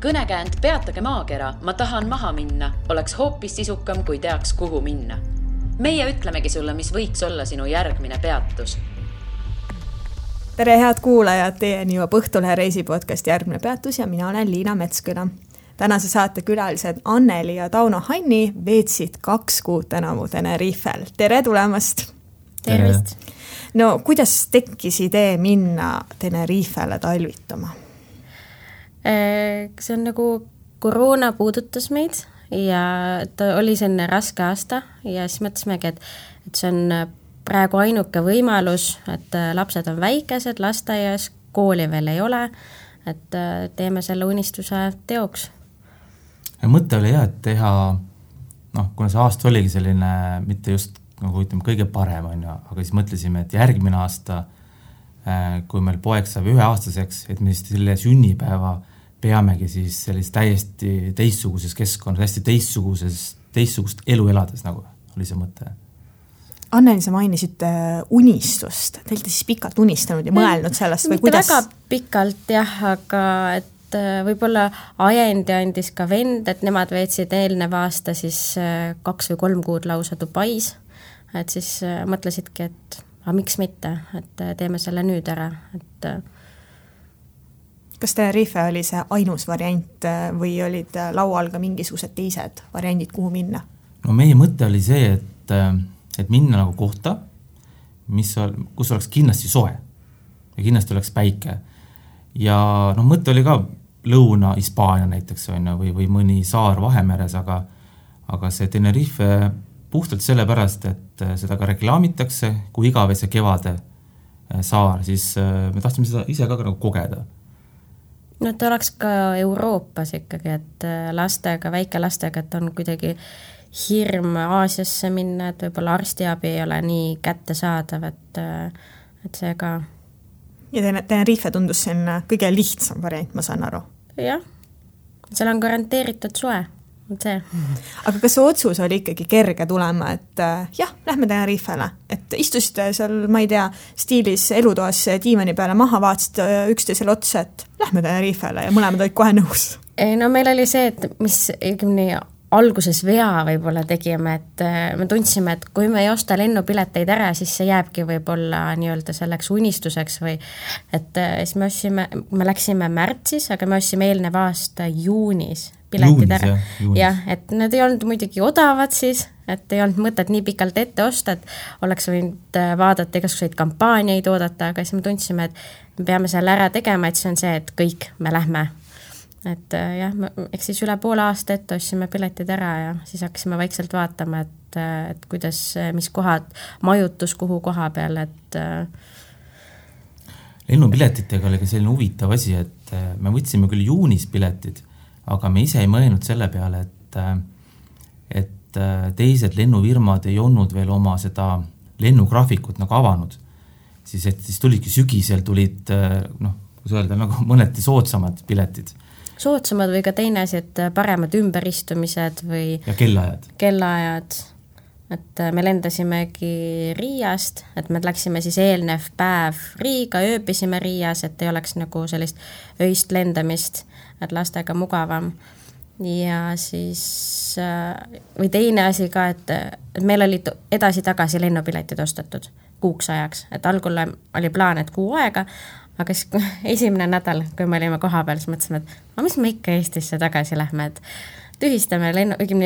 Kõnekäänd peatage maakera, ma tahan maha minna, oleks hoopis sisukam, kui teaks, kuhu minna. Meie ütlemegi sulle, mis võiks olla sinu järgmine peatus. Tere head kuulajad, teieni juba Õhtulehe reisipodcast Järgmine peatus ja mina olen Liina Metsküla. Tänase saate külalised Anneli ja Tauno Hanni veetsid 2 kuud tänavu Tenerifel. Tere tulemast! Tervist! No, kuidas tekkis idee minna Tenerifele talvitama? See on nagu koroona puudutas meid ja ta oli selline raske aasta ja siis mõtlesimegi, et see on praegu ainuke võimalus, et lapsed on väikesed, lasteaias, kooli veel ei ole, et teeme selle unistuse teoks. Ja mõte oli et teha, kuna see aasta oligi selline, mitte just nagu ütleme kõige parem, aga siis mõtlesime, et järgmine aasta, kui meil poeg saab 1-aastaseks, et me siis selle sünnipäeva peamegi siis sellist täiesti teistsuguses keskkonnas, hästi teistsugust elu elades, nagu oli see mõte. Anneli, sa mainisid unistust. Te olete siis pikalt unistanud ja mõelnud sellest või kuidas? Mitte väga pikalt jah, aga et võib-olla ajendi andis ka vend, et nemad veetsid eelnev aasta siis 2 või 3 kuud lausa Dubais. Et siis mõtlesidki, et miks mitte, et teeme selle nüüd ära, et kas Tenerife oli see ainus variant või olid laual ka mingisugused teised variandid, kuhu minna? No meie mõte oli see, et minna nagu kohta, kus oleks kindlasti soe ja kindlasti oleks päike. Ja mõte oli ka Lõuna-Hispaania näiteks või mõni saar Vahemeres, aga see Tenerife puhtalt sellepärast, et seda ka reklaamitakse, kui igavese kevade saar, siis me tahtsime seda ise ka nagu kogeda. No ta oleks ka Euroopas ikkagi, et lastega, väikelastega, et on kuidagi hirm Aasiasse minna, et võib-olla arstiabi ei ole nii kättesaadav, et see ka... Ja Tenerife tundus siin kõige lihtsam variant, ma saan aru. Jah, seal on garanteeritud soe. See. Aga kas see otsus oli ikkagi kerge tulema, et lähme Tenerifele, et istusite seal, ma ei tea, stiilis elutoas diivani peale maha, vaatasid üksteisele otsa, et lähme Tenerifele ja mõlemad olid kohe nõus? No meil oli see, et mis alguses vea võib-olla tegime, et me tundsime, et kui me ei osta lennupileteid ära, siis see jääbki võib-olla nii-öelda selleks unistuseks või et siis me läksime märtsis, aga me ostsime eelnev aasta juunis piletid ära. Jah, et need ei olnud muidugi odavad siis, et ei olnud mõtet nii pikalt ette osta, et oleks võinud vaadata igasuguseid kampaaniaid oodata, aga siis me tundsime, et me peame selle ära tegema, et see on see, et kõik me lähme. Et jah, eks siis üle poole aasta ette ostsime piletid ära ja siis hakkasime vaikselt vaatama, et kuidas, mis kohad, majutus kuhu koha peal, et lennupiletitega oli ka selline huvitav asi, et me võtsime küll juunis piletid, aga me ise ei mõelnud selle peale, et teised lennufirmad ei olnud veel oma seda lennugraafikut nagu avanud. Siis tulidki sügisel tulid, kus öelda, nagu mõneti soodsamad piletid. Soodsamad või ka teine asi, et paremad ümberistumised või... Ja kellaajad. Et me lendasimegi Riiast, et me läksime siis eelnev päev Riiga, ööbisime Riias, et ei oleks nagu sellist öist lendamist, et lastega mugavam. Ja siis, või teine asi ka, et meil oli edasi-tagasi lennupiletid ostetud kuuks ajaks, et algul oli plaan, et kuu aega, aga siis esimene nädal, kui me olime koha peal, siis mõtlesime, et mis me ikka Eestisse tagasi lähme, et tühistame,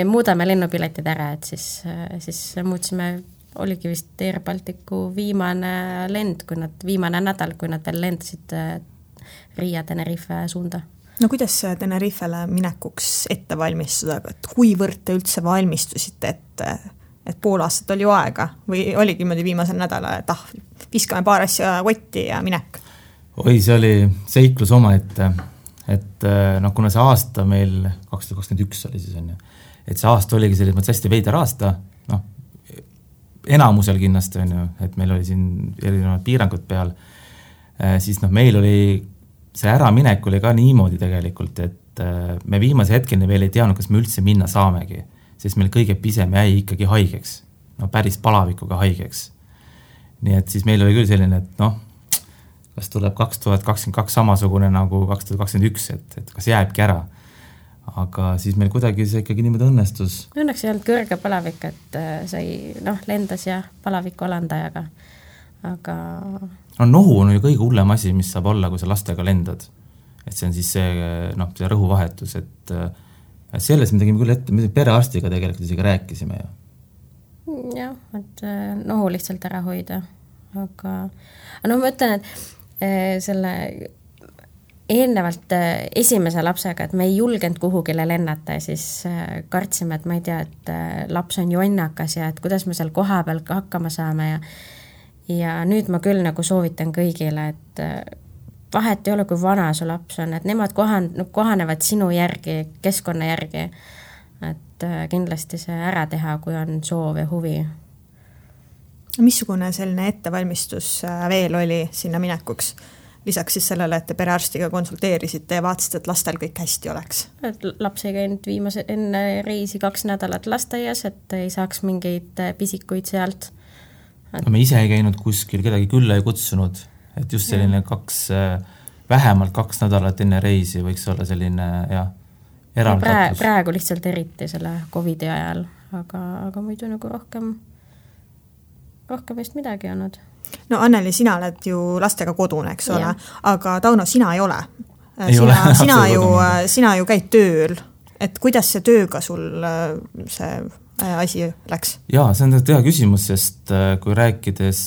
muudame lennupiletid ära, et siis muutsime, oligi vist Air Balticu viimane lend, viimane nädal, kui nad veel lendasid Riia Tenerife suunda. No kuidas Tenerifele minekuks ette valmistuda, et kuivõrd te üldse valmistusite, et pool aastat oli ju aega või oligi mõni viimasel nädala, et viskame paar asja kotti ja minek? Oi, see oli seiklus oma, et kuna see aasta meil 2021 oli siis et see aasta oligi selles hästi veider aasta, enamusel kindlasti et meil oli siin erinevad piirangud peal, siis meil oli see äraminek oli ka niimoodi tegelikult, et me viimase hetkeni veel ei teadnud, kas me üldse minna saamegi, sest meil kõige pisem jäi ikkagi haigeks, päris palavikuga haigeks. Nii et siis meil oli küll selline, et kas tuleb 2022 samasugune nagu 2021, et kas jääbki ära. aga siis meil kuidagi see ikkagi niimoodi õnnestus. Õnneks ei olnud kõrge palavik, et sai lendas ja palaviku alandajaga, aga... Nohu on ju kõige hullem asi, mis saab olla, kui sa lastega lendad. Et see on siis see rõhuvahetus, et selles me tegime küll ette, me perearstiga tegelikult isegi rääkisime ju. Jah, et nohu lihtsalt ära hoida, aga ma ütlen, et selle eelnevalt esimese lapsega, et me ei julgenud kuhugile lennata ja siis kartsime, et ma ei tea, et laps on jonnakas ja et kuidas me seal koha peal hakkama saame ja nüüd ma küll nagu soovitan kõigile, et vahet ei ole, kui vana su laps on, et nemad kohanevad sinu järgi, keskkonna järgi, et kindlasti see ära teha, kui on soov ja huvi. Missugune selline ettevalmistus veel oli sinna minekuks? Lisaks siis sellele, et te perearstiga konsulteerisite ja vaatasite, et lastel kõik hästi oleks. Et laps ei käinud enne reisi 2 nädalat lasteaias, et ei saaks mingeid pisikuid sealt. Me ise ei käinud kuskil, kedagi külla ei kutsunud, et just selline vähemalt 2 nädalat enne reisi võiks olla selline eraldatus. Praegu lihtsalt eriti selle COVID-i ajal, aga muidu nagu rohkem vist midagi olnud. No Anneli, sina oled ju lastega kodune, eks ole, aga Tauno, sina ei ole. Sina ju käid tööl, et kuidas see tööga sul see asi läks? Jaa, see on hea küsimus, sest kui rääkides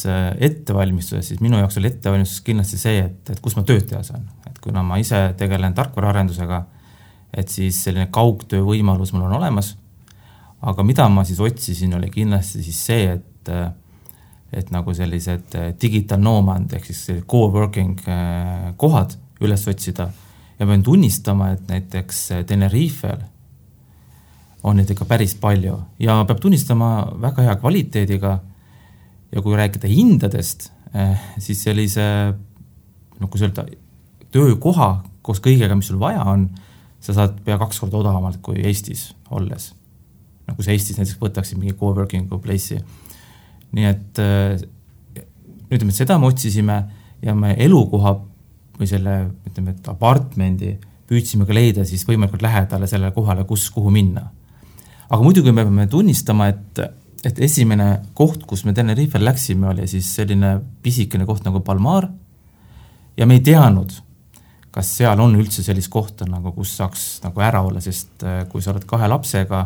ettevalmistusest, siis minu jaoks oli ettevalmistus kindlasti see, et kus ma tööd teha saan. Et kuna ma ise tegelen tarkvaraarendusega, et siis selline kaugtöö võimalus mul on olemas, aga mida ma siis otsisin, oli kindlasti siis see, et nagu sellised digital nomad ehk siis co-working kohad üles otsida ja pean tunnistama, et näiteks Tenerifel on neid ikka päris palju ja peab tunnistama väga hea kvaliteediga ja kui rääkida hindadest, siis sellise nagu öelda, töökoha koos kõigega, mis sul vaja on, sa saad pea 2 korda odavamalt kui Eestis olles. Nagu see Eestis näiteks võtaksid mingi co-working place'i. Nii et ütleme, et seda me otsisime ja me elukoha või selle ütleme, et apartmendi püüdsime ka leida siis võimalikult lähedale sellele kohale, kuhu minna. Aga muidugi me peame tunnistama, et esimene koht, kus me Tenerifel läksime, oli siis selline pisikene koht nagu Palmar ja me ei teadnud, kas seal on üldse sellist kohta, nagu, kus saaks nagu ära olla, sest kui sa oled 2 lapsega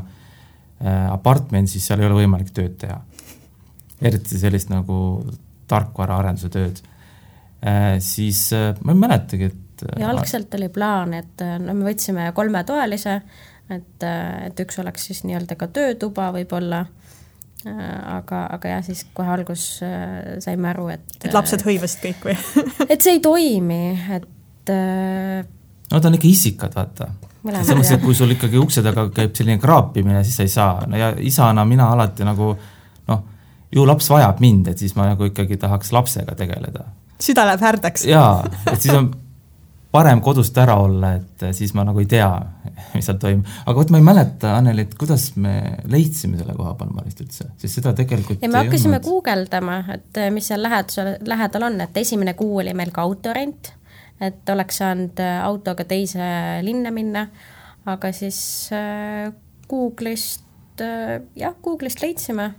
apartment, siis seal ei ole võimalik tööd teha. Eriti sellist nagu tarkvaraarenduse tööd. Siis ma ei mäletagi, et... Ja algselt oli plaan, et me võtsime 3-toalise, et üks oleks siis nii-öelda ka töötuba võib-olla, aga jah, siis kohe algus saime aru, et lapsed hõivasid kõik või? Et see ei toimi, et... No ta on ikka isikad, vaata. Samas, et kui sul ikkagi ukse taga käib selline kraapimine, siis sa ei saa. No ja isana mina alati nagu... ju laps vajab mind, et siis ma nagu ikkagi tahaks lapsega tegeleda. Süda läheb härdaks. Jaa, et siis on parem kodust ära olla, et siis ma nagu ei tea, mis seal toimub. Aga ma ei mäleta, Anneli, et kuidas me leidsime selle koha Palmarist üldse, sest seda tegelikult ja me hakkasime guugeldama, et mis seal lähedal on, et esimene kuu oli meil ka autorent, et oleks saanud autoga teise linna minna, aga siis Google'ist leidsime.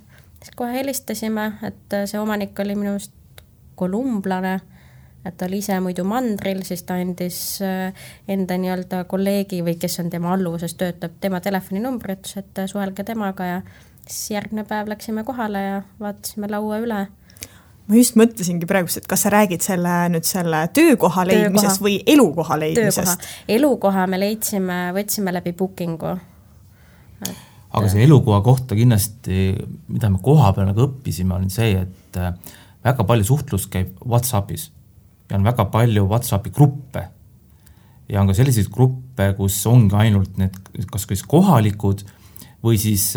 Kohe helistasime, et see omanik oli minust kolumblane, et ta oli ise muidu mandril, siis ta andis enda nii-öelda kolleegi või kes on tema alluvuses töötab, tema telefoninumbri, et suhelge temaga ja siis järgmine päev läksime kohale ja vaatasime laua üle. Ma just mõtlesingi praegu, et kas sa räägid selle töökoha leidmisest või elukoha leidmisest? Elukoha me võtsime läbi bookingu. Aga see elukoha kohta kindlasti, mida me koha peal nagu õppisime, on see, et väga palju suhtlus käib WhatsAppis ja on väga palju WhatsAppi gruppe. Ja on ka selliseid gruppe, kus ongi ainult need kas kohalikud või siis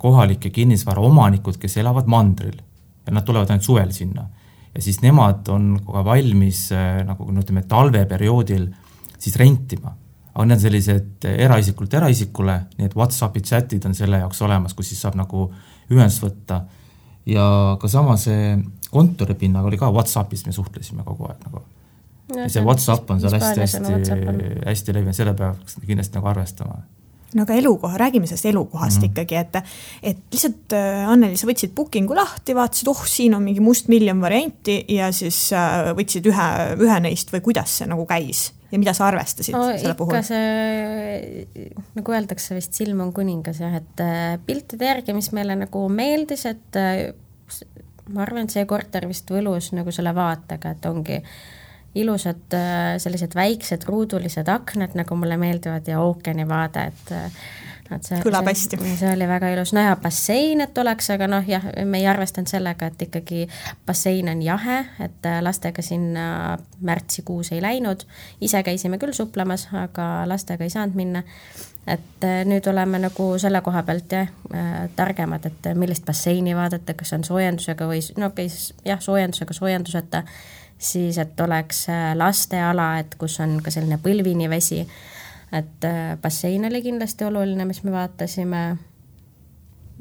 kohalike kinnisvara omanikud, kes elavad mandril ja nad tulevad ainult suvel sinna. Ja siis nemad on kogu valmis nagu ütleme, talveperioodil siis rentima. Aga need on sellised eraisikule, nii et WhatsAppi chatid on selle jaoks olemas, kus siis saab nagu ühendust võtta. Ja ka sama see kontoripinnaga oli ka WhatsAppis, me suhtlesime kogu aeg nagu. Ja see WhatsApp on seal hästi levinud, selle peaks kindlasti nagu arvestama. No aga elukoha, räägime sellest elukohast ikkagi, et lihtsalt Anneli, sa võtsid bookingu lahti, vaatasid, siin on mingi must miljon varianti ja siis võtsid ühe neist või kuidas see nagu käis ja mida sa arvestasid selle puhul? Ikka see, nagu öeldakse vist, silm on kuningas, et piltide järgi, mis meile nagu meeldis, et ma arvan, et see korter vist võlus nagu selle vaatega, et ongi ilusad sellised väiksed ruudulised aknad, nagu mulle meeldivad ja ookeani vaade, et kõlab hästi. See oli väga ilus. No ja bassein, et oleks, aga jah, me ei arvestanud sellega, et ikkagi bassein on jahe, et lastega sinna märtsikuus ei läinud. Ise käisime küll suplemas, aga lastega ei saanud minna. Et nüüd oleme nagu selle koha pealt targemad, et millist basseini vaadata, kas on soojendusega või soojenduseta, siis et oleks lasteala, et kus on ka selline põlvini vesi, et bassein oli kindlasti oluline, mis me vaatasime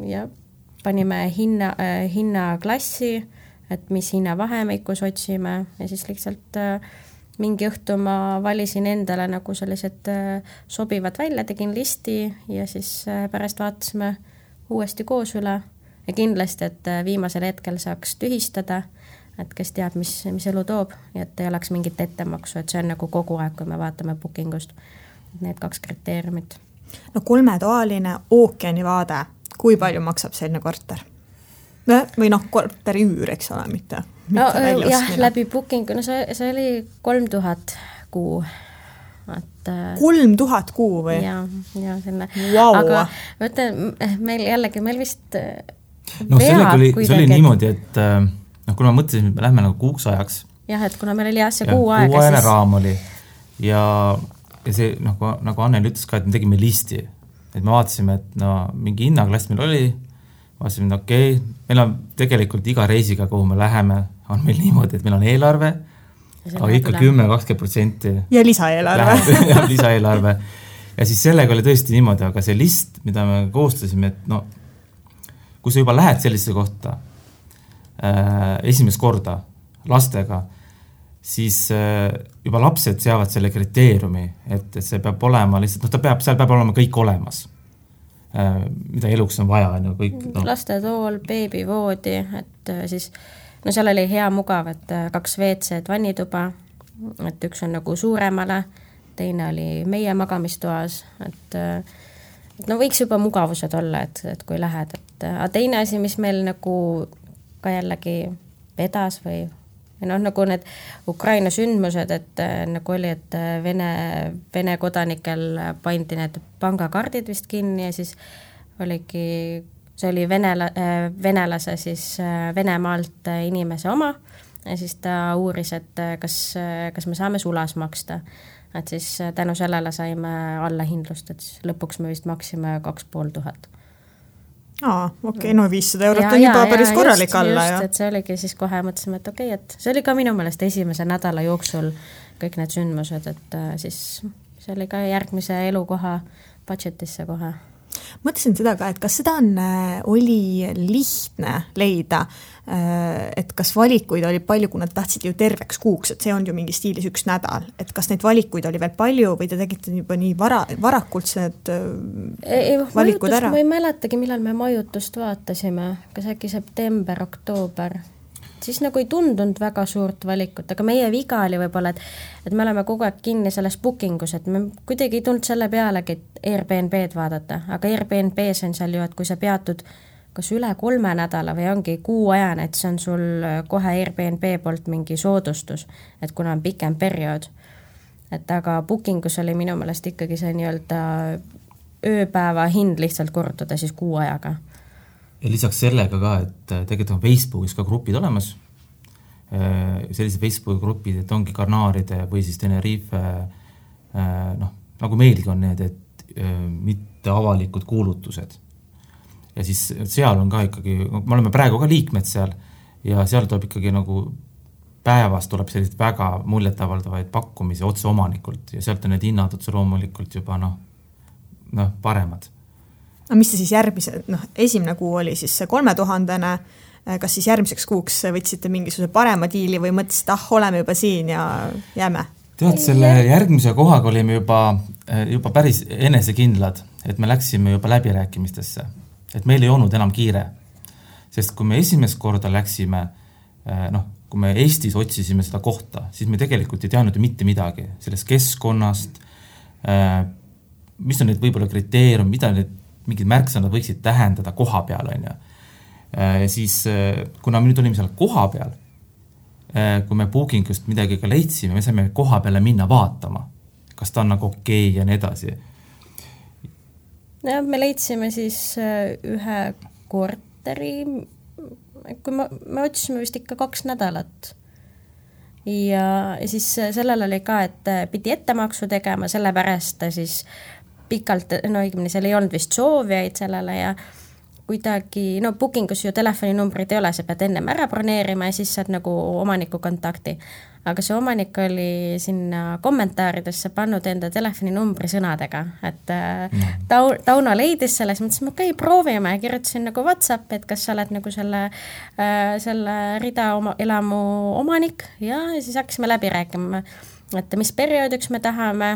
ja panime hinnaklassi, et mis hinnavahemikus otsime ja siis lihtsalt mingi õhtu ma valisin endale nagu sellised sobivad välja, tegin listi ja siis pärast vaatasime uuesti koos üle ja kindlasti, et viimasel hetkel saaks tühistada, et kes teab, mis elu toob ja et ei oleks mingit ettemaksu, et see on nagu kogu aeg, kui me vaatame bookingust need 2 kriteeriumit. No 3-toaline ookeani vaade, kui palju maksab selline korter? Või korteri üür, eks ole, mitte jah, läbi bookingu, no see oli 3000 kuu. Et 3000 kuu või? Ja selline. Wow. Aga võtta, meil vist see oli niimoodi, et kuna ma mõtlesin, et me lähme nagu kuuks ajaks. Jah, et kuna meil oli see kuu aega. Kuuajane raam oli ja see, nagu Anneli ütles ka, et me tegime listi. Et me vaatasime, et mingi hinnaklass meil oli, vaatasime, et meil on tegelikult iga reisiga, kuhu me läheme, on meil niimoodi, et meil on eelarve, aga ikka 10-20%. Ja lisaeelarve. Ja lisaeelarve. Ja siis sellega oli tõesti niimoodi, aga see list, mida me koostasime, et kui sa juba lähed sellisesse kohta, esimest korda lastega, siis juba lapsed seavad selle kriteeriumi, et see peab olema lihtsalt, seal peab olema kõik olemas, mida eluks on vaja. Lastetool, beebivoodi, et siis, seal oli hea mugav, et 2 WC-d vannituba, et üks on nagu suuremale, teine oli meie magamistoas, et võiks juba mugavused olla, et kui lähed, aga teine asi, mis meil nagu ka jällegi vedas või nagu need Ukraina sündmused, et nagu oli, et Vene kodanikel pandi need pangakaardid vist kinni ja siis oligi, see oli venelase siis Venemaalt inimese oma ja siis ta uuris, et kas me saame sulas maksta. Et siis tänu sellele saime allahindlust, et siis lõpuks me vist maksime 2500. Okei, 500 eurot on juba päris korralik alla. Just, et see oligi siis kohe mõtlesime, et okei, et see oli ka minu meelest esimese nädala jooksul kõik need sündmused, et siis see oli ka järgmise elukoha budgetisse kohe. Mõtlesin seda ka, et kas seda oli lihtne leida, et kas valikuid oli palju, kui nad tahtsid ju terveks kuuks, et see on ju mingi stiilis 1 nädal, et kas neid valikuid oli veel palju või te tegite juba nii varakult need valikud ära? Ma ei mäletagi, millal me majutust vaatasime, kas äkki september, oktoober, siis nagu ei tundunud väga suurt valikut, aga meie viga oli võib-olla, et me oleme kogu aeg kinni selles bookingus, et me kuidagi ei tulnud selle pealegi, et Airbnb-d vaadata, aga Airbnb-s on seal ju, et kui sa peatud kas üle 3 nädala või ongi kuuajane, et see on sul kohe Airbnb poolt mingi soodustus, et kuna on pikem periood. Et aga bookingus oli minu meelest ikkagi see nii-öelda ööpäeva hind lihtsalt korrutada siis kuuajaga. Ja lisaks sellega ka, et tegelikult on Facebookis ka grupid olemas. Sellised Facebooki grupid, et ongi Karnaaride või siis Tenerife, nagu meilgi on need, et mitte avalikud kuulutused. Ja siis seal on ka ikkagi, me oleme praegu ka liikmed seal ja seal tuleb ikkagi nagu päevast tuleb sellised väga muljetavaldavaid pakkumisi otse omanikult ja sealt on need hinnad otse loomulikult juba paremad. mis te siis esimene kuu oli siis see 3000, kas siis järgmiseks kuuks võtsite mingisuguse parema diili või mõtlesite, oleme juba siin ja jääme? Tead, selle järgmise kohaga olime juba päris enesekindlad, et me läksime juba läbirääkimistesse, et meil ei olnud enam kiire. Sest kui me esimest korda läksime, kui me Eestis otsisime seda kohta, siis me tegelikult ei teadnud ju mitte midagi sellest keskkonnast, mis on need võib-olla kriteerium, mida need mingid märksõnad võiksid tähendada koha peal, on ju. Ja siis, kuna me nüüd olime seal koha peal, kui me bookingust midagi ka leidsime, me saime koha peale minna vaatama, kas ta on nagu okei ja nii edasi. Ja me leidsime siis ühe korteri, kui me otsisime vist ikka 2 nädalat. Ja siis sellel oli ka, et pidi ettemaksu tegema, sellepärast siis pikalt, seal ei olnud vist soovijaid sellele ja kuidagi, bookingus ju telefoninumbrid ei ole, sa pead ennem ära broneerima ja siis saad nagu omaniku kontakti. Aga see omanik oli sinna kommentaaridesse pannud enda telefoninumbri sõnadega, et Tauno leidis selles, mõtlesin, okei, proovime ja kirjutasin nagu WhatsApp, et kas sa oled nagu selle rida elamu omanik ja siis hakkasime läbi rääkima, et mis perioodiks me tahame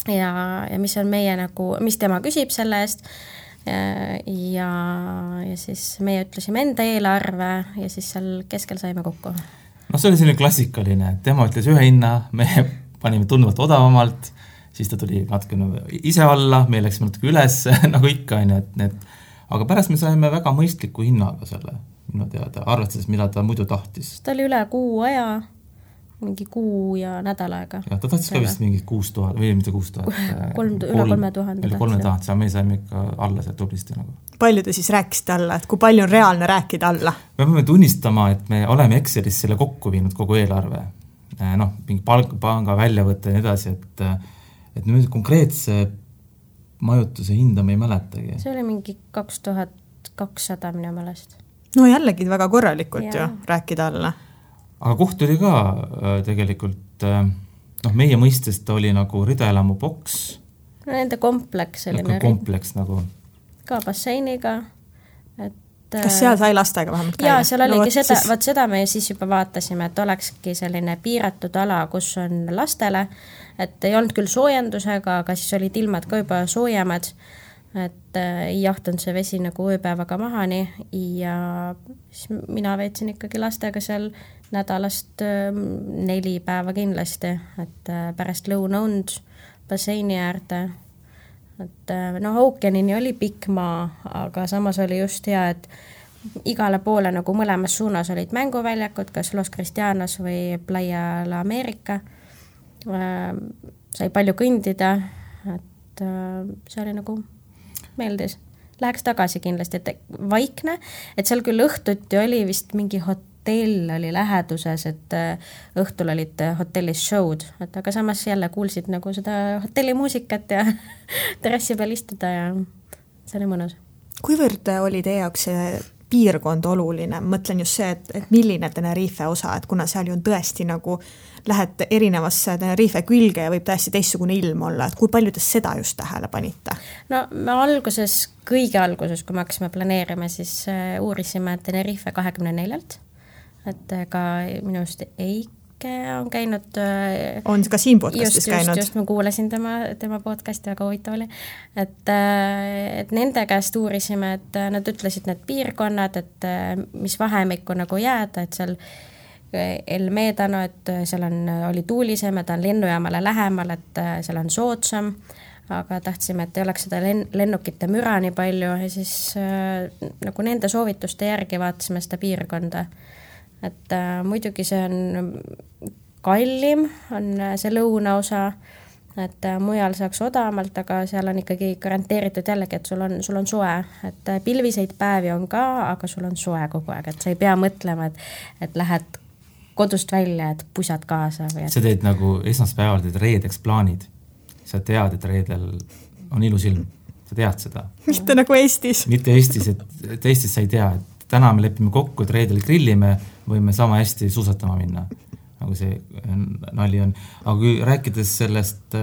ja mis on meie nagu, mis tema küsib selle eest ja siis meie ütlesime enda eelarve ja siis seal keskel saime kokku. See oli selline klassikaline, tema ütles ühe hinna, me panime tunduvalt odavamalt, siis ta tuli natuke ise alla, me läksime natuke üles, nagu ikka, aga pärast me saime väga mõistliku hinnaga selle, minu teada, arvestades, mida ta muidu tahtis. Ta oli üle kuu aja, mingi kuu ja nädal aega. Ja ta tahtis ka vist mingi 6000 või mitte 6000. Üle 3000. Üle 3000, me saime ikka alla seal tublisti. Palju te siis rääkisite alla, et kui palju on reaalne rääkida alla? Me peame tunnistama, et me oleme Excelis selle kokku viinud kogu eelarve. Mingi panga väljavõtte ja nii edasi, et nüüd konkreetse majutuse hinda me ei mäletagi. See oli mingi 2200 minu meelest. No jällegi väga korralikult ju rääkida alla. Aga koht oli ka tegelikult, meie mõistest oli nagu ridaelamu boks. Nende kompleks oli kompleks nagu. Ka basseiniga. Kas seal sai lastega vähemalt käia? Jaa, seal oligi seda me siis juba vaatasime, et olekski selline piiratud ala, kus on lastele, et ei olnud küll soojendusega, aga siis olid ilmad ka juba soojemad, et ei jahtunud see vesi nagu ööpäevaga mahani ja siis mina veetsin ikkagi lastega seal nädalast 4 päeva kindlasti, et pärast lõunaund basseini äärde, et ookeanini oli pikk maa, aga samas oli just hea, et igale poole nagu mõlemas suunas olid mänguväljakud, kas Los Cristianos või Playa la America, sai palju kõndida, et see oli nagu meeldis. Läheks tagasi kindlasti, et vaikne, et seal küll õhtuti oli vist mingi hotell oli läheduses, et õhtul olid hotellis show'd, et aga samas jälle kuulsid nagu seda hotellimuusikat ja terrassi peal istuda ja see oli mõnus. Kuivõrd oli teie jaoks see piirkond oluline? Mõtlen just see, et milline Tenerife osa, et kuna seal ju on tõesti nagu lähed erinevasse Tenerife külge ja võib täiesti teistsugune ilm olla, et kui palju te seda just tähele panite? Me kõige alguses, kui me hakkasime planeerima, siis uurisime Tenerife 24-lt, et ka minu just Eike on käinud. On ka siin podcastis käinud? Just, ma kuulasin tema podcasti, väga huvitav oli. Et nende käest uurisime, et nad ütlesid need piirkonnad, et mis vahemikku nagu jääda, et seal El Médano, et seal oli tuulisem, et on lennujaamale lähemal, et seal on soodsam, aga tahtsime, et ei oleks seda lennukite müra nii palju ja siis nagu nende soovituste järgi vaatasime seda piirkonda. Et muidugi see on kallim, on see lõunaosa, et mujal saaks odavamalt, aga seal on ikkagi garanteeritud jällegi, et sul on soe, et pilviseid päevi on ka, aga sul on soe kogu aeg, et sa ei pea mõtlema, et lähed kodust välja, et pusad kaasa. Sa teed nagu esmaspäeval teed reedeks plaanid. Sa tead, et reedel on ilus ilm. Sa tead seda. Mitte nagu Eestis. Mitte Eestis, et Eestis sa ei tea, et täna me lepime kokku, et reedel grillime, võime sama hästi suusatama minna. nagu see nali on. Aga kui rääkides sellest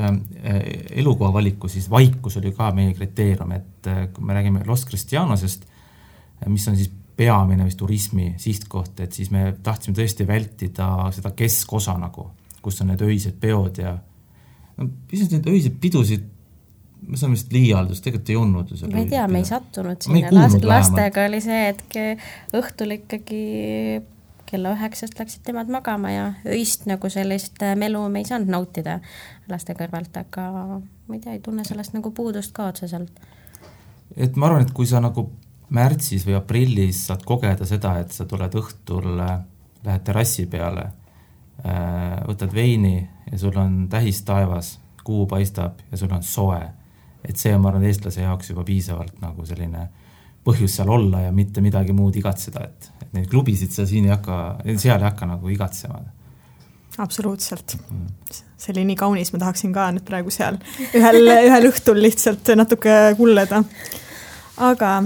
elukoha valiku, siis vaikus oli ka meie kriteerium, et kui me räägime Los Cristianosest, mis on siis peamine vist turismi sihtkoht, et siis me tahtsime tõesti vältida seda keskosa nagu, kus on need öised peod ja pisut need öised pidusid, me saame vist liialdus, tegelikult ei olnud. Ma ei tea, me ei sattunud sinna. Lastega oli see, et õhtul ikkagi kella 9 läksid temad magama ja öist nagu sellist melu me ei saanud nautida laste kõrvalt, aga ma ei tea, ei tunne sellest nagu puudust ka otseselt. Et ma arvan, et kui sa nagu märtsis või aprillis saad kogeda seda, et sa tuled õhtul, lähed terrassi peale, võtad veini ja sul on tähis taevas, kuu paistab ja sul on soe. Et see on, ma arvan, eestlase jaoks juba piisavalt nagu selline põhjus seal olla ja mitte midagi muud igatseda, et neid klubisid sa siin seal ei hakka nagu igatsema. Absoluutselt. See oli nii kaunis, ma tahaksin ka nüüd praegu seal ühel õhtul lihtsalt natuke kulleda. Aga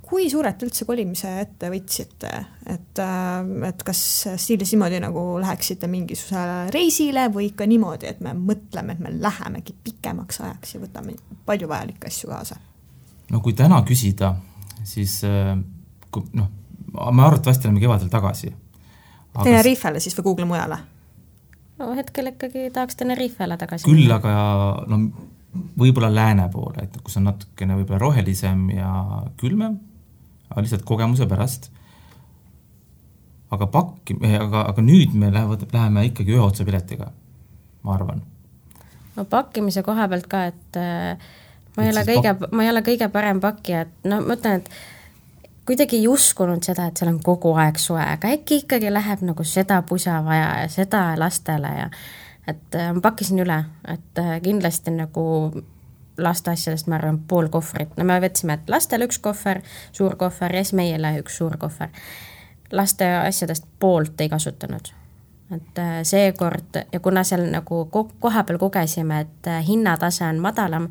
kui suurelt üldse kolimise ette võtsite, et kas stiilis niimoodi nagu läheksite mingisugusele reisile või ikka niimoodi, et me mõtleme, et me lähemegi pikemaks ajaks ja võtame palju vajalikke asju kaasa? No kui täna küsida, siis me arvatavasti oleme kevadel tagasi. Tenerifele siis või Google mujale? No hetkel ikkagi tahaks Tenerifele tagasi. Küll, aga võib-olla lääne poole, et kus on natukene võib-olla rohelisem ja külmem, aga lihtsalt kogemuse pärast. Aga nüüd me läheme ikkagi ühe otsa piletiga, ma arvan. No pakkimise koha pealt ka, et ma ei ole kõige parem pakki, et ma mõtlen, et kuidagi ei uskunud seda, et seal on kogu aeg soe, aga äkki ikkagi läheb nagu seda pusa vaja ja seda lastele ja et ma pakkisin üle, et kindlasti nagu laste asjadest ma arvan pool kohvrit. No me võtsime, et lastele üks kohver, suur kohver ja siis meile üks suur kohver. Laste asjadest poolt ei kasutanud. Et seekord, ja kuna seal nagu koha peal kogesime, et hinnatase on madalam,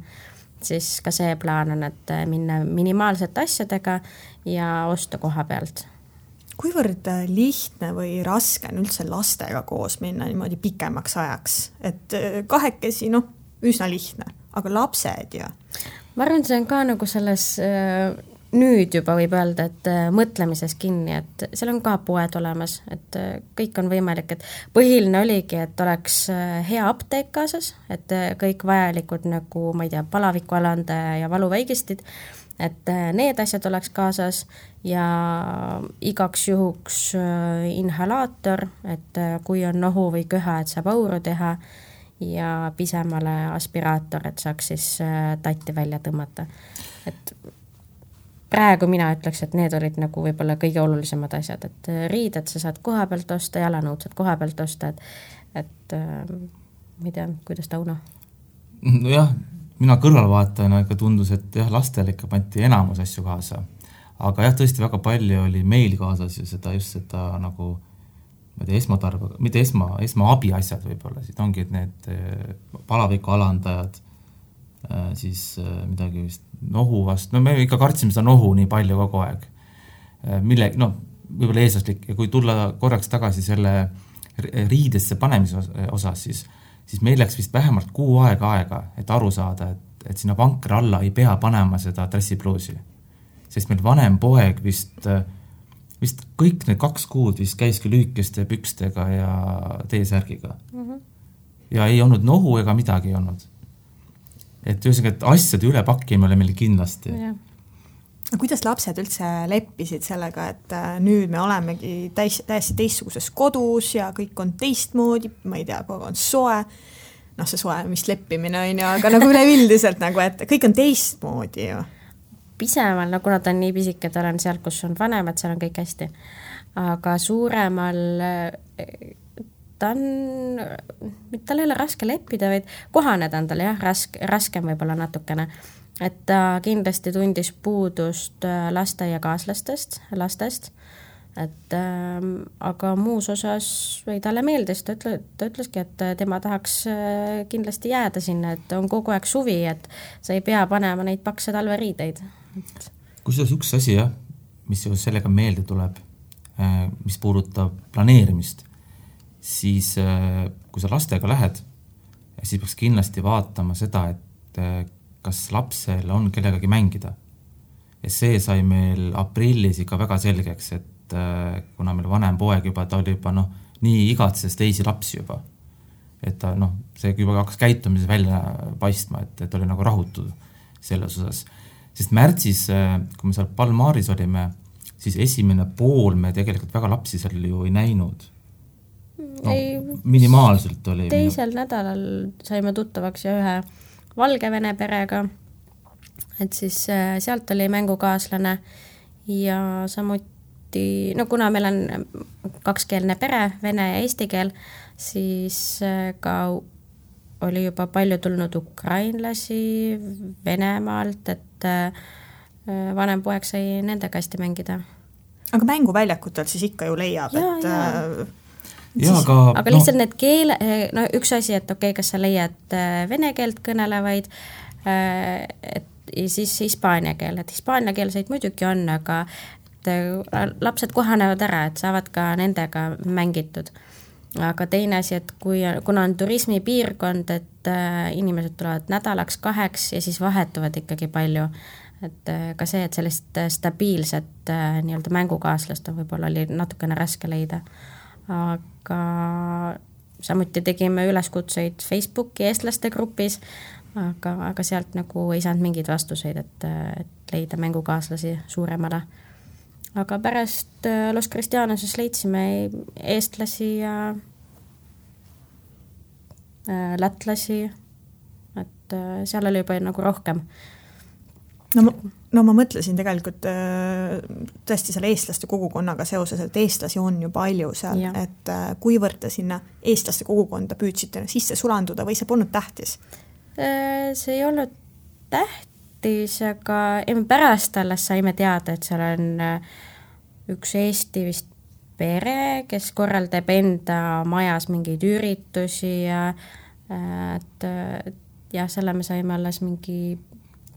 siis ka see plaan on, et minna minimaalsete asjadega ja osta koha pealt. Kuivõrd lihtne või raske on üldse lastega koos minna niimoodi pikemaks ajaks? Et kahekesi, üsna lihtne, aga lapsed ja? Ma arvan, see on ka nagu selles nüüd juba võib öelda, et mõtlemises kinni, et seal on ka poed olemas, et kõik on võimalik, et põhiline oligi, et oleks hea apteek kaasas, et kõik vajalikud nagu, ma ei tea, palavikualandaja ja valuväigistid, et need asjad oleks kaasas ja igaks juhuks inhalaator, et kui on nohu või köha, et saab auru teha ja pisemale aspiraator, et saaks siis tatti välja tõmmata. Et praegu mina ütleks, et need olid nagu võib-olla kõige olulisemad asjad, et riided sa saad koha pealt osta, jalanõud saad koha pealt osta, et ma ei tea, kuidas Tauno? Nojah, mina kõrvalvaatajana ikka tundus, et jah, lastel ikka panti enamus asju kaasa. Aga jah, tõesti väga palju oli meil kaasas ja just seda nagu mitte esmaabi asjad võib-olla, siit ongi, et need palaviku alandajad, siis midagi vist nohu vast, me ikka kartsime seda nohu nii palju kogu aeg. Võib-olla eeslaslik, ja kui tulla korraks tagasi selle riidesse panemise osas, siis meil läks vist vähemalt 6 aega, et aru saada, et sinna vankra alla ei pea panema seda dressipluusi. Sest meil vanem poeg vist kõik need 2 kuud vist käiski lüükeste pükstega ja teesärgiga. Ja ei olnud nohu ega midagi ei olnud. Et ühesõnaga, et asjade ülepakkimine oli meil kindlasti. Kuidas lapsed üldse leppisid sellega, et nüüd me olemegi täiesti teistsuguses kodus ja kõik on teistmoodi, ma ei tea, kogu on soe, see soe, mis leppimine on ju, aga nagu ülevildiselt, nagu, et kõik on teistmoodi ju. Pisemal, kuna ta on nii pisike, ta on seal, kus on vanemad, seal on kõik hästi. Aga suuremal tal ei ole raske leppida, vaid kohaneda on tal jah, raskem võib-olla natukene. Et ta kindlasti tundis puudust lasteaiakaaslastest, lastest, et aga muus osas või talle meeldis, ta ütleski, et tema tahaks kindlasti jääda sinna, et on kogu aeg suvi, et sa ei pea panema neid pakse talveriideid. Kusjuures üks asi, mis sellega meelde tuleb, mis puudutab planeerimist, siis kui sa lastega lähed, siis peaks kindlasti vaatama seda, et kas lapsel on kellegagi mängida. Ja see sai meil aprillis ikka väga selgeks, et kuna meil vanem poeg juba, ta oli juba nii igatses teisi lapsi juba. Et ta, see juba hakkas käitumises välja paistma, et oli nagu rahutud selles osas. Sest märtsis, kui me seal Palmaris olime, siis esimene pool me tegelikult väga lapsi seal ju ei näinud. Minimaalselt oli. Teisel nädalal saime tuttavaks ja ühe Valgevene perega, et siis sealt oli mängukaaslane ja samuti, kuna meil on kakskeelne pere, vene ja eesti keel, siis ka oli juba palju tulnud ukrainlasi Venemaalt, et vanem poeg sai nendega hästi mängida. Aga mänguväljakutel siis ikka ju leiab, aga lihtsalt need keele, üks asi, et kas sa leiad vene keelt kõnelevaid, ja siis hispaania keel, et hispaania keelseid muidugi on, aga lapsed kohanevad ära, et saavad ka nendega mängitud. Aga teine asi, et kuna on turismipiirkond, et inimesed tulevad nädalaks 2 ja siis vahetuvad ikkagi palju, et ka see, et sellist stabiilset nii-öelda mängukaaslast on võib-olla oli natukene raske leida. Aga samuti tegime üleskutseid Facebooki eestlaste grupis, aga sealt nagu ei saanud mingeid vastuseid, et leida mängukaaslasi suuremale. Aga pärast Los Cristianoses leidsime eestlasi ja lätlasi, et seal oli juba nagu rohkem. No ma mõtlesin tegelikult tõesti selle eestlaste kogukonnaga seoses, et eestlasi on ju palju seal, et kuivõrd te sinna eestlaste kogukonda püüdsite sisse sulanduda või see polnud tähtis? See ei olnud tähtis, aga pärast alles saime teada, et seal on üks Eesti vist pere, kes korraldab enda majas mingeid üritusi ja selle me saime alles mingi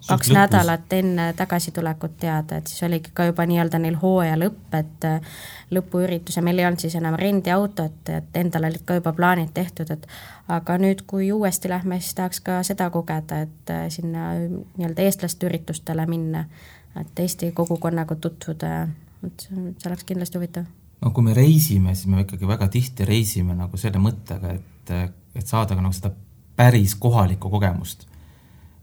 2 nädalat enne tagasitulekut teada, et siis oligi ka juba nii-öelda neil hooaja lõpp, et lõpuüritus ja meil ei olnud siis enam rendiautot, et endal olid ka juba plaanid tehtud, et aga nüüd, kui uuesti lähme, siis tahaks ka seda kogeda, et sinna nii-öelda eestlaste üritustele minna, et Eesti kogukonnaga tutvuda, et see oleks kindlasti huvitav. No kui me reisime, siis me ikkagi väga tihti reisime nagu selle mõttega, et saada ka nagu seda päris kohalikku kogemust.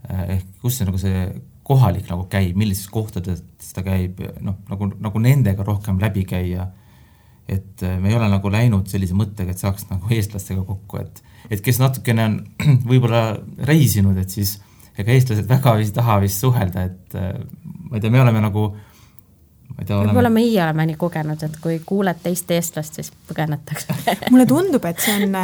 Ehk kus see, nagu see kohalik nagu käib, millises kohtades ta käib, nagu nendega rohkem läbi käia, et me ei ole nagu läinud sellise mõttega, et saaks nagu eestlastega kokku, et kes natukene on võib-olla reisinud, et siis ega eestlased väga vist taha vist suhelda, et ma ei tea, me oleme nagu võib-olla meie oleme nii kogenud, et kui kuuled teist eestlast, siis põgenetakse. Mulle tundub, et see on,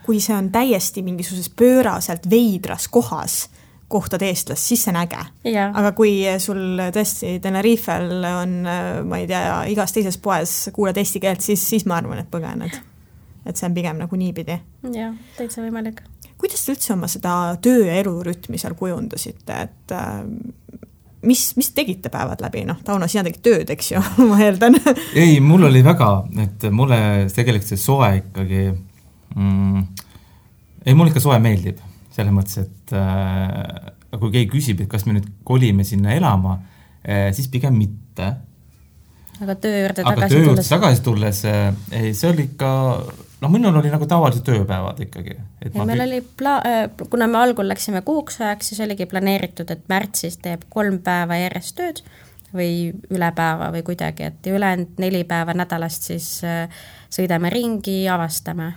kui see on täiesti mingisuses pööraselt veidras kohas, kohtad eestlast, siis see on äge. Aga kui sul tõesti Tenerifel on, ma ei tea, igas teises poes kuuled eesti keelt, siis ma arvan, et põgened. Et see on pigem nagu niipidi. Jah, täitsa võimalik. Kuidas te üldse oma seda töö ja elurütmi seal kujundasite, et mis tegite päevad läbi? Tauno, sina tegid tööd, eks ju, ma eeldan. Ei, mul oli väga, et mulle tegelikult see soe ikkagi mul ikka soe meeldib. Selles mõttes, et kui keegi küsib, et kas me nüüd kolime sinna elama, siis pigem mitte. Aga töö juurde tagasi tulles, see oli ikka, minul oli nagu tavalised tööpäevad ikkagi. Meil oli, kuna me algul läksime kuuks ajaks, siis oligi planeeritud, et märtsis teeb 3 päeva järjest tööd või üle päeva või kuidagi, et ülejäänud 4 päeva nädalast siis sõidame ringi, avastame.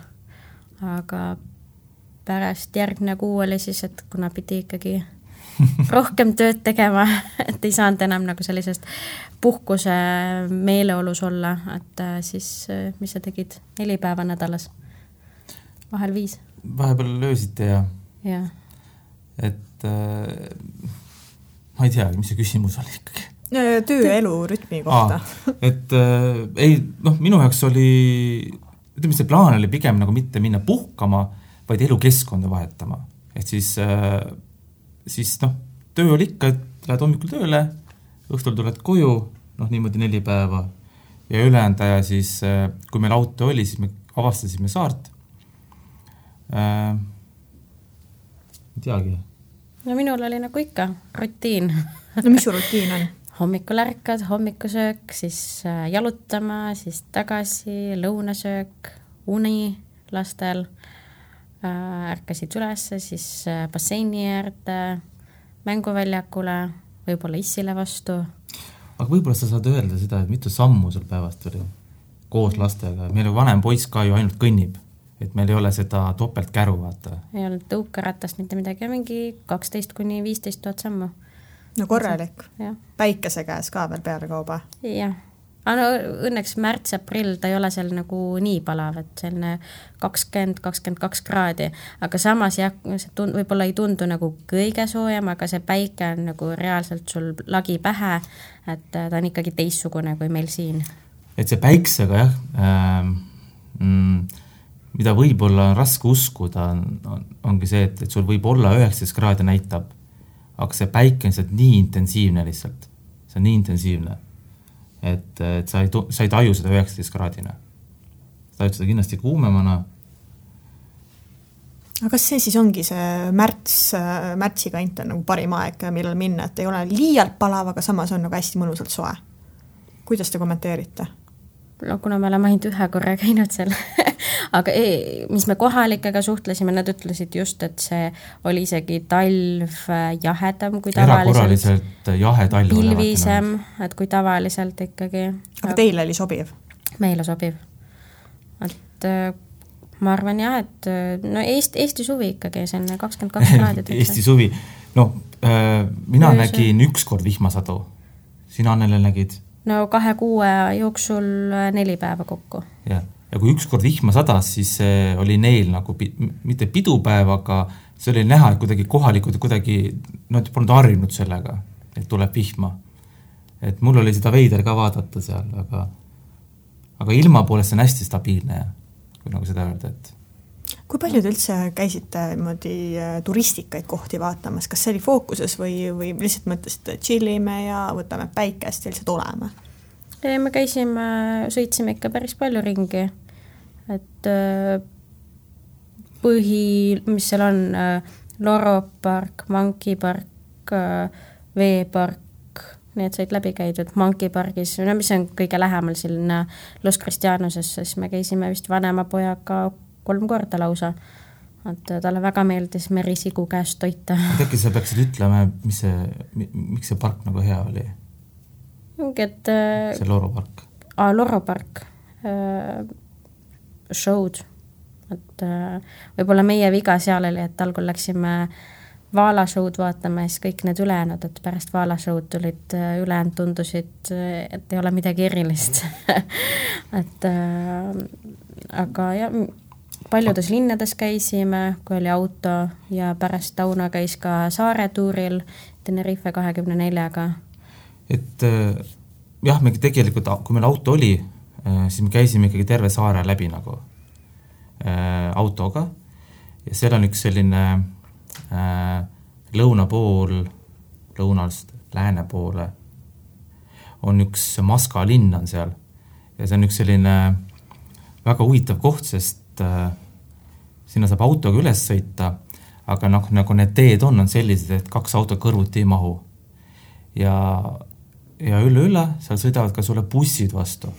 Aga pärast järgne kuu oli siis, et kuna pidi ikkagi rohkem tööd tegema, et ei saanud enam nagu sellisest puhkuse meeleolus olla, et siis mis sa tegid 4 päeva nädalas, vahel 5. Vahepeal löösite ja. Et ma ei tea, mis see küsimus oli ikkagi. Töö ja elu rütmi kohta. Minu jaoks oli, ütleme, see plaan oli pigem nagu mitte minna puhkama, vaid elukeskkonda vahetama. Et siis töö oli ikka, et lähed hommikul tööle, õhtul tuled koju, niimoodi 4 päeva ja ülejäänud aja siis, kui meil auto oli, siis me avastasime saart. Ei teagi. No minul oli nagu ikka rutiin. No mis su rutiin on? Hommikul ärkad, hommikusöök, siis jalutama, siis tagasi, lõunasöök, uni lastel, ärkasid ülesse, siis basseini äärde, mänguväljakule, võib-olla issile vastu. Aga võib-olla sa saad öelda seda, et mitu sammu sul päevast oli koos lastega. Meil vanem poiss ka ju ainult kõnnib, et meil ei ole seda topelt käru, vaata. Ei olnud tõukeratast mitte midagi, mingi 12-15 000 sammu. No korralik. Ja. Päikese käes ka veel peale kauba. Jah. No, õnneks märts-aprill ta ei ole seal nagu nii palav, et selline 20-22 kraadi, aga samas jah, see võib-olla ei tundu nagu kõige soojem, aga see päike on nagu reaalselt sul lagi pähe, et ta on ikkagi teissugune kui meil siin. Et see päiksega jah, mida võib-olla on raske uskuda, ongi see, et sul võib olla 19 kraadi näitab, aga see päike on nii intensiivne lihtsalt. See on nii intensiivne, et sa ei taju seda 19 kraadina. Sa tajud seda kindlasti kuumemana. Aga kas see siis ongi see märtsi kant on nagu parim aeg, millal minna, et ei ole liialt palav, aga samas on nagu hästi mõnusalt soe? Kuidas te kommenteerite? No kuna me oleme ainult ühe korra käinud seal, aga mis me kohalikega suhtlesime, nad ütlesid just, et see oli isegi talv jahedam kui tavaliselt. Erakorraliselt jahe talv. Pilvisem, et kui tavaliselt ikkagi. Aga teile oli sobiv? Meile sobiv. Et ma arvan jah, et no Eesti suvi ikkagi, see on 22 kraadid. Eesti suvi. No, mina nägin ükskord vihmasadu. Sina, Annele, nägid? No 2 kuu jooksul 4 päeva kokku. Ja kui ükskord vihma sadas, siis oli neil nagu mitte pidupäev, aga see oli näha, et kuidagi kohalikud nad polnud harjunud sellega, et tuleb vihma. Et mul oli seda veider ka vaadata seal, aga ilma poolest on hästi stabiilne, kui nagu seda öelda, et kui palju te üldse käisite turistikaid kohti vaatamas? Kas see oli fookuses või lihtsalt mõtlesite, chillime ja võtame päikest ja lihtsalt oleme? Me sõitsime ikka päris palju ringi. Et mis seal on, Loro park, Monkey park, veepark, need said läbi käidud Monkey pargis, mis on kõige lähemal sinna Los Cristianosesse, siis me käisime vist vanema pojaga 3 korda lausa, et talle väga meeldis merisigu käest toita. Äkki sa peaksid ütlema, miks see park nagu hea oli? See Loro park. Loro park. Show'd. Et võib-olla meie viga seal oli, et algul läksime Vaala show'd vaatama ja siis kõik need ülejäänud, et pärast Vaala show'd tulid ülejäänud tundusid, et ei ole midagi erilist. Et aga jah, paljudes linnades käisime, kui oli auto ja pärast Tauno käis ka saaretuuril Tenerife 24-ga. Et jah, me tegelikult, kui meil auto oli, siis me käisime ikkagi terve saare läbi nagu autoga ja seal on üks selline lõuna pool, lõunast lääne poole on üks Maska linn on seal ja see on üks selline väga huvitav koht, sest sinna saab autoga üles sõita, aga nagu need teed on sellised, et 2 auto kõrvuti ei mahu. Ja üle seal sõidavad ka sulle bussid vastu.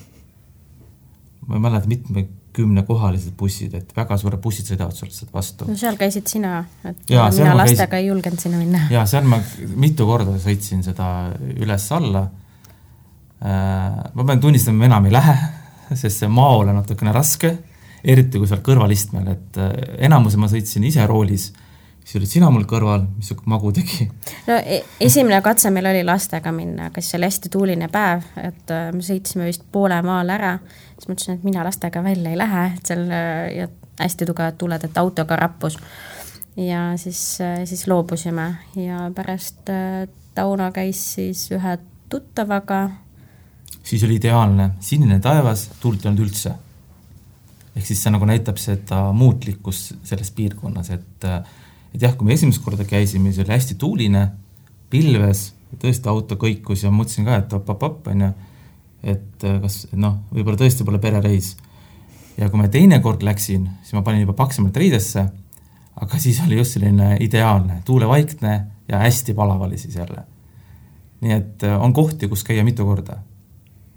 Ma ei mäleta mitme 10 kohalised bussid, et väga suure bussid sõidavad sulle vastu. No seal käisid sina, et ja, mina lastega ei julgenud sinna minna. Ja seal ma mitu korda sõitsin seda üles alla. Ma pean tunnistama, enam ei lähe, sest see maol on natukene raske, eriti kui seal kõrvalistmel, et enamuse ma sõitsin ise roolis, siis olid sina mul kõrval, mis magu tegi. No esimene katse meil oli lastega minna, kes oli hästi tuuline päev, et me sõitsime vist poole maal ära, siis mõtlesin, et mina lastega välja ei lähe, et seal ja hästi tugevad tuled, et autoga rappus. Ja siis loobusime ja pärast Tauno käis siis ühe tuttavaga. Siis oli ideaalne, sinine taevas, tuult ei olnud üldse. Ehk siis see nagu näitab seda muutlikkus selles piirkonnas, et jah, kui me esimest korda käisime, see oli hästi tuuline, pilves, tõesti auto kõikus ja mõtlesin ka, et op, et kas, võib-olla tõesti pole perereis. ja kui ma teine kord läksin, siis ma panin juba paksemalt riidesse, aga siis oli just selline ideaalne, tuulevaikne ja hästi palav oli siis jälle. Nii et on kohti, kus käia mitu korda.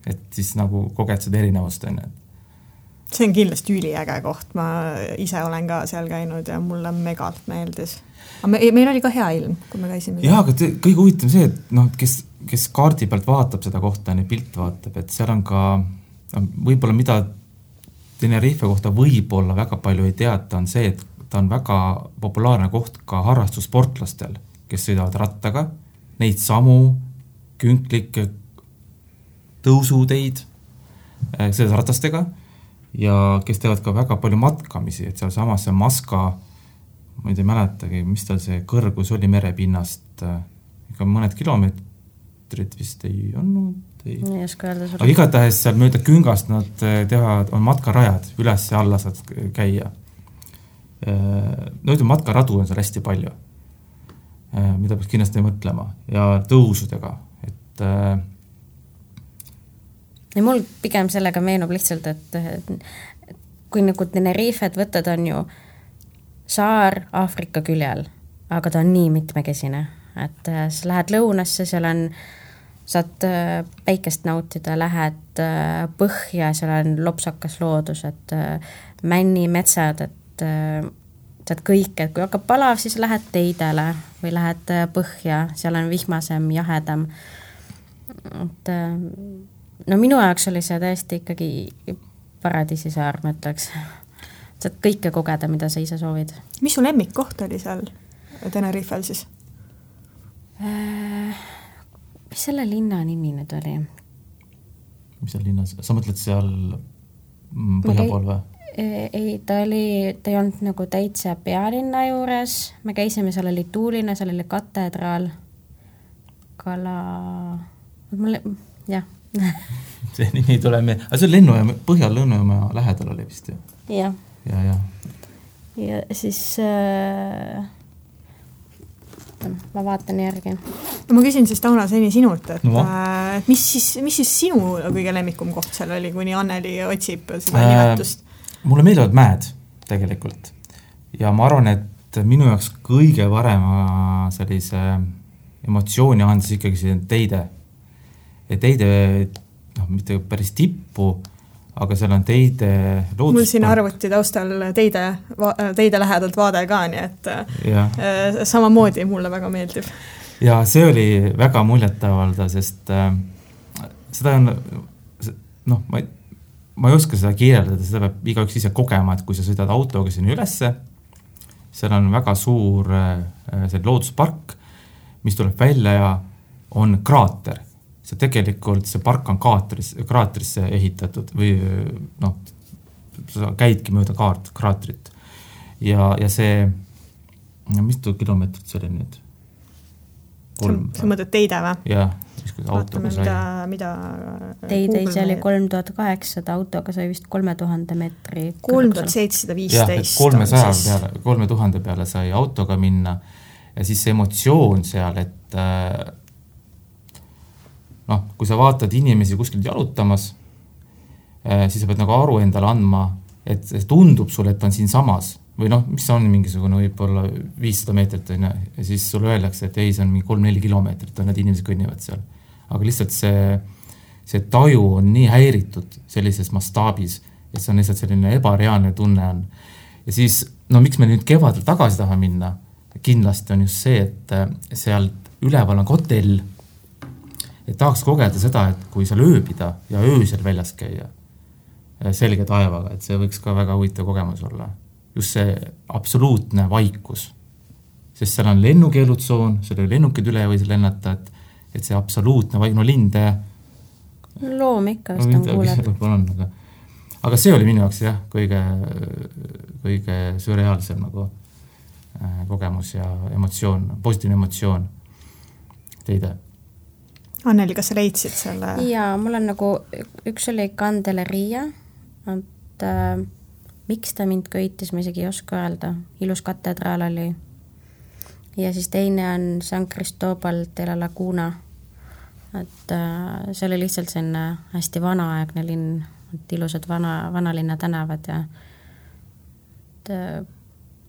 Et siis nagu koged seda erinevust on. See on kindlasti üliäge koht, ma ise olen ka seal käinud ja mulle megalt meeldis. Aga meil oli ka hea ilm, kui me käisime. Jaa, aga kõige huvitav see, et kes kaardi pealt vaatab seda kohta, pilt vaatab, et seal on ka võib-olla mida Tenerife kohta võib-olla väga palju ei teata, on see, et ta on väga populaarne koht ka harrastussportlastel, kes sõidavad rattaga, neid samu künklikke tõusuteid selles ratastega ja kes teevad ka väga palju matkamisi, et seal samas see Maska, ma ei mäletagi, mis tal see kõrgus oli merepinnast, ikka mõned kilomeetrid vist ei olnud. Ei oska öelda aga igatahes seal mööda küngast nad teevad, on matkarajad, üles ja alla saad käia. No ütleme, matkaradu on seal hästi palju, mida peaks kindlasti mõtlema ja tõusudega, et ja mul pigem sellega meenub lihtsalt, et kui nagu Tenerifet võtad, on ju saar Aafrika küljel, aga ta on nii mitmekesine, et sa lähed lõunasse, seal on, saad päikest nautida, lähed põhja, seal on lopsakas loodus, et männi metsad, et saad kõik, et kui hakkab palav, siis lähed teidele või lähed põhja, seal on vihmasem, jahedam. Et no minu jaoks oli see täiesti ikkagi paradiisisaar, ma ütleks. Saad kõike kogeda, mida sa ise soovid. Mis su lemmikkoht oli seal Tenerifel siis? Mis selle linna nimi nüüd oli? Mis seal linnas? Sa mõtled seal põhjapool või? Ei, ta ei olnud nagu täitsa pealinna juures. Me käisime, seal oli tuuline, seal oli katedraal. Jah. See nimi ei tule meie. Aga see on Põhja-Lennujaama lähedal oli vist ju? Jah. Ja siis ma vaatan järgi. No ma küsin siis Tauno seni sinult, et mis siis sinu kõige lemmikum koht seal oli, kuni Anneli otsib seda nimetust? Mulle meeldivad mäed tegelikult ja ma arvan, et minu jaoks kõige parema sellise emotsiooni andis ikkagi see teide. Teide, mitte päris tippu, aga seal on teide looduspark. Mul siin arvuti taustal teide lähedalt vaade ka, nii et samamoodi mulle väga meeldib. Ja see oli väga muljetavalda, sest seda on, ma ei oska seda kirjeldada, seda peab igaüks ise kogema, et kui sa sõidad autoga sinna ülesse, seal on väga suur see looduspark, mis tuleb välja ja on kraater. See tegelikult, see park on kraatrisse ehitatud või sa käidki mööda kraatrit. Ja see, mitu kilomeetrit see oli nüüd? Sa mõtled teide või? Jah, autoga sai. Teide ise oli 3800, autoga sai vist 3000 meetri. 3715. 3000 peale sai autoga minna ja siis see emotsioon seal, et kui sa vaatad inimesi kuskilt jalutamas, siis sa pead nagu aru endale andma, et see tundub sulle, et on siin samas. Või mis on mingisugune võib-olla 500 meetrit, ja siis sulle öeldakse, et ei, see on 3-4 kilomeetrit, need inimesed kõnnivad seal. Aga lihtsalt see taju on nii häiritud sellises mastaabis, et see on lihtsalt selline ebareaalne tunne on. Ja siis, miks me nüüd kevadel tagasi taha minna, kindlasti on just see, et seal üleval on hotell, et tahaks kogeda seda, et kui seal ööbida ja öösel väljas käia selge taevaga, et see võiks ka väga huvitav kogemus olla. Just see absoluutne vaikus. Sest seal on lennukeelutsoon, seal oli lennukid üle või see lennata, et see absoluutne linde. Loom ikka, vist on kuuleb. Aga see oli minu jaoks kõige sürreaalsem kogemus ja emotsioon, positiivne emotsioon teide. Anneli, kas sa leidsid selle? Jaa, mul on üks oli Candeleria, et miks ta mind köitis, ma isegi ei oska öelda. Ilus katedraal oli. Ja siis teine on San Cristobal de la Laguna. Et see oli lihtsalt selline hästi vanaaegne linn, et ilusad vanalinna tänavad ja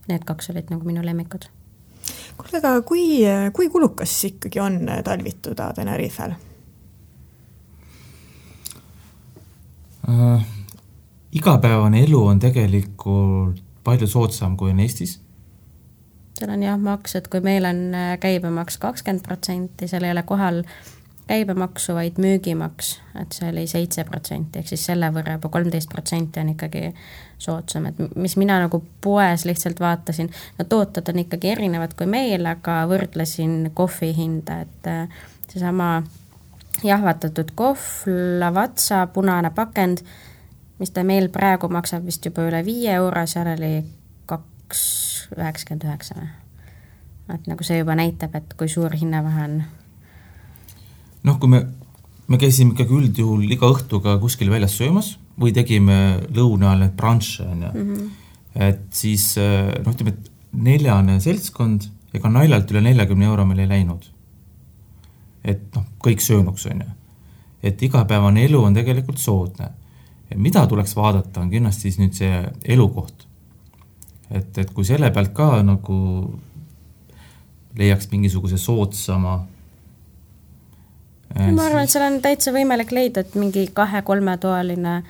need 2 olid nagu minu lemmikud. Kuule, aga kui kulukas ikkagi on talvituda Tenerifel? Igapäevane elu on tegelikult palju soodsam kui on Eestis. Seal on jah maks, et kui meil on käibemaks 20%, seal ei ole kohal käibemaksu, vaid müügimaks, et see oli 7%, ehk siis selle võrra juba 13% on ikkagi soodsam, et mis mina nagu poes lihtsalt vaatasin, no tooted on ikkagi erinevad kui meil, aga võrdlesin kohvi hinda, et seesama jahvatatud kohv, lavatsa, punane pakend, mis ta meil praegu maksab vist juba üle 5 euro, seal oli 2,99. Et nagu see juba näitab, et kui suur hinnavahe on. Noh, kui me käisime ikkagi üldjuhul iga õhtuga kuskil väljas söömas või tegime lõuna ajal need brunche, et siis ütleme, et 4 seltskond ega naljalt üle 40 euro meil ei läinud. Et kõik söönuks on ju. Et igapäevane elu on tegelikult soodne. Mida tuleks vaadata, on kindlasti siis nüüd see elukoht. Et kui selle pealt ka nagu leiaks mingisuguse soodsama ma arvan, et seal on täitsa võimalik leida, et mingi 2-3 toaline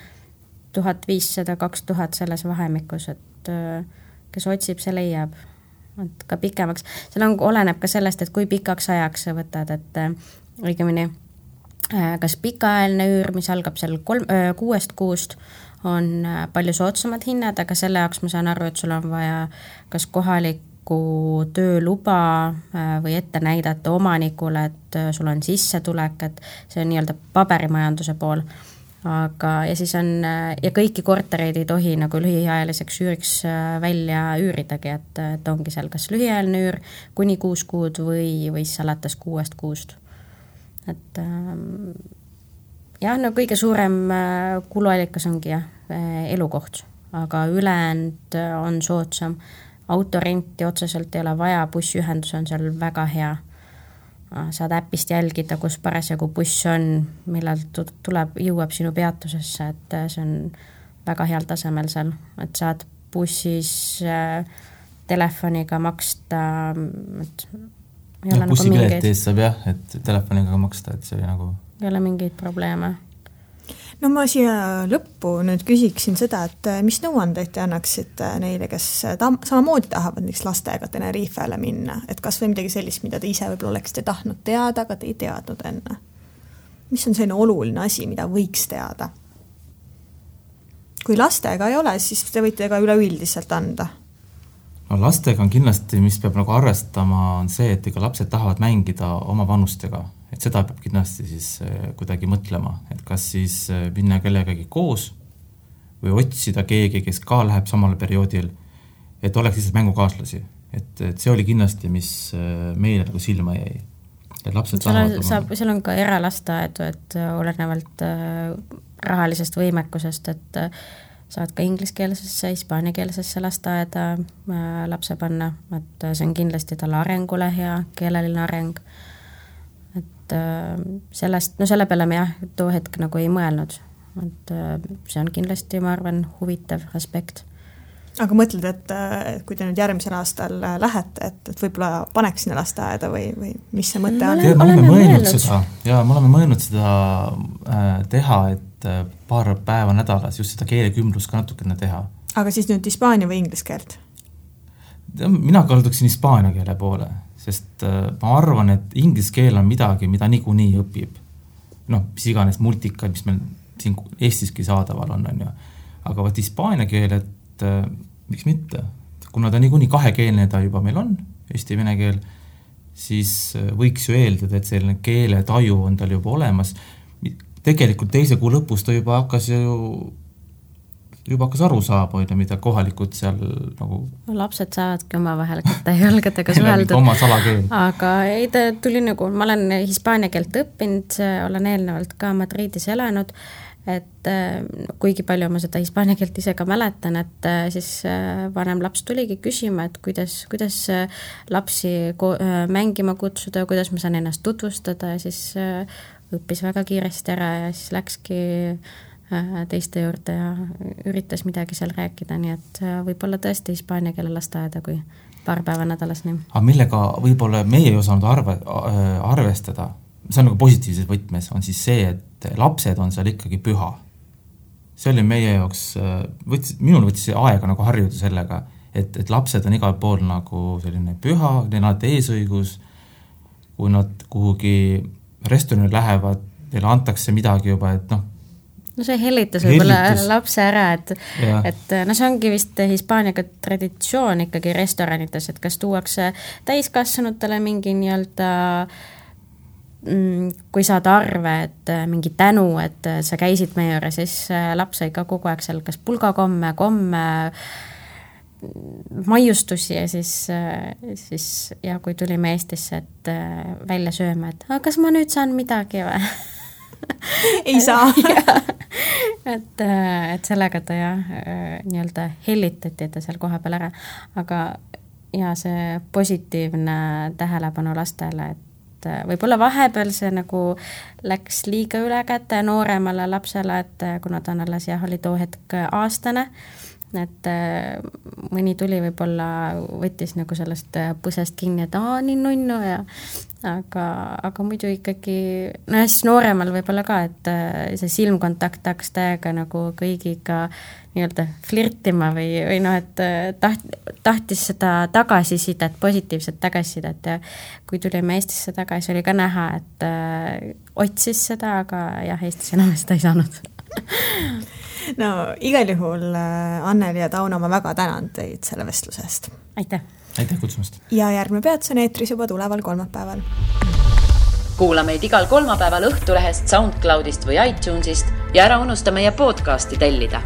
1500-2000 selles vahemikus, et kes otsib, see leiab. Et ka pikemaks. Seal oleneb ka sellest, et kui pikaks ajaks sa võtad, et õigemini kas pikaajaline üür, mis algab seal 6 kuust, on palju soodsamad hinnad, aga selle jaoks ma saan aru, et sul on vaja kas kohalik tööluba või ette näidata omanikule, et sul on sissetulek, et see on nii-öelda paberimajanduse pool. Aga, ja siis on, ja kõiki kortereid ei tohi nagu lühiajaliseks üüriks välja üüridagi, et ongi seal kas lühiajaline üür kuni 6 kuud või siis alates 6 kuust. Et jah, no kõige suurem kuluallikas ongi elukoht, aga ülejäänud on soodsam. Autorenti otseselt ei ole vaja, bussiühendus on seal väga hea. Saad äpist jälgida, kus parasjagu buss on, millal jõuab sinu peatusesse, et see on väga heal tasemel seal, et saad bussis telefoniga maksta, et ei ole nagu mingeid... ees saab jah, et telefoniga maksta, et see oli nagu... Ei ole mingeid probleeme. No ma siia lõppu nüüd küsiksin seda, et mis nõuandeid te annaksid neile, kes samamoodi tahavad näiteks lastega Tenerifele minna, et kas või midagi sellist, mida te ise võib-olla oleksite tahtnud teada, aga te ei teadnud enne. Mis on selline oluline asi, mida võiks teada? Kui lastega ei ole, siis te võite ka üleüldiselt anda. No lastega on kindlasti, mis peab nagu arvestama, on see, et ega lapsed tahavad mängida oma vanustega. Et seda peab kindlasti siis kuidagi mõtlema, et kas siis minna kellegagi koos või otsida keegi, kes ka läheb samal perioodil, et oleks lihtsalt mängukaaslasi. Et see oli kindlasti, mis meile nagu silma jäi. Et lapsed seal on ka eralasteaedu, et olenevalt rahalisest võimekusest, et saad ka ingliskeelsesse, hispaaniakeelsesse lasteaeda lapse panna, et see on kindlasti talle arengule hea, keeleline areng. Sellest, no selle peale me jah, too hetk nagu ei mõelnud, et see on kindlasti, ma arvan, huvitav aspekt. Aga mõtled, et kui te nüüd järgmisel aastal lähete, et võib-olla paneks sinna lasteaeda või mis see mõte on? Me oleme mõelnud seda teha, et paar päeva nädalas just seda keelekümblust ka natukene teha. Aga siis nüüd hispaania või inglise keelt? Mina kalduksin hispaania keele poole, sest ma arvan, et inglise keel on midagi, mida niikuinii õpib. Mis iganes multikad, mis meil siin Eestiski saadaval on ju. Aga võt hispaania keel, et miks mitte? Kuna ta niikuinii kahekeelne ta juba meil on, eesti-vene keel, siis võiks ju eeldada, et selline keele taju on tal juba olemas. Tegelikult 2. kuu lõpus ta juba hakkas aru saama, mida kohalikud seal nagu... Lapsed saavadki oma vahel kätte jalgadega suheldud. Oma salakeel. Aga ei, ta tuli nagu, ma olen hispaania keelt õppinud, olen eelnevalt ka Madridis elanud, et kuigi palju ma seda hispaania keelt ise ka mäletan, et siis vanem laps tuligi küsima, et kuidas lapsi mängima kutsuda, kuidas ma saan ennast tutvustada ja siis õppis väga kiiresti ära ja siis läkski teiste juurde ja üritas midagi seal rääkida, nii et võib-olla tõesti hispaania keele lasteaeda kui paar päeva nädalas. Nii. Aga millega võib-olla meie ei osanud arvestada, see on nagu positiivses võtmes, on siis see, et lapsed on seal ikkagi püha. See oli meie jaoks, minul võttis aega nagu harjuda sellega, et lapsed on igal pool nagu selline püha, neil on eesõigus, kui nad kuhugi restorani lähevad, neile antakse midagi juba, et noh. No see hellitas võib-olla lapse ära, et no see ongi vist Hispaaniaga traditsioon ikkagi restoranites, et kas tuuakse täiskasvanutele mingi nii-öelda kui saad arve, et mingi tänu, et sa käisid meie juures, siis laps sai ka kogu aeg seal kas pulgakomme, maiustusi ja siis ja kui tulime Eestisse, et välja sööma, et kas ma nüüd saan midagi või? Ei saa. et sellega ta nii-öelda hellitati, et ta seal koha peal ära, aga ja see positiivne tähelepanu lastele, et võib-olla vahepeal see nagu läks liiga üle käte nooremale lapsele, et kuna ta on alles oli too hetk aastane, et mõni tuli võib-olla võttis nagu sellest põsest kinni, et nii nunnu ja aga muidu ikkagi, no ja siis nooremal võib-olla ka, et see silmkontakt hakkas täiega nagu kõigiga nii-öelda flirtima või noh, et tahtis seda tagasisidet, positiivset tagasisidet ja kui tulime Eestisse tagasi, oli ka näha, et otsis seda, aga jah, Eestis enam seda ei saanud. No igal juhul Anneli ja Tauno, ma väga tänan teid selle vestlusest. Aitäh! Aitäh kutsumast! Ja järgmine peatus on eetris juba tuleval kolmapäeval. Kuula meid igal kolmapäeval Õhtulehest, SoundCloudist või iTunesist ja ära unusta meie podcasti tellida.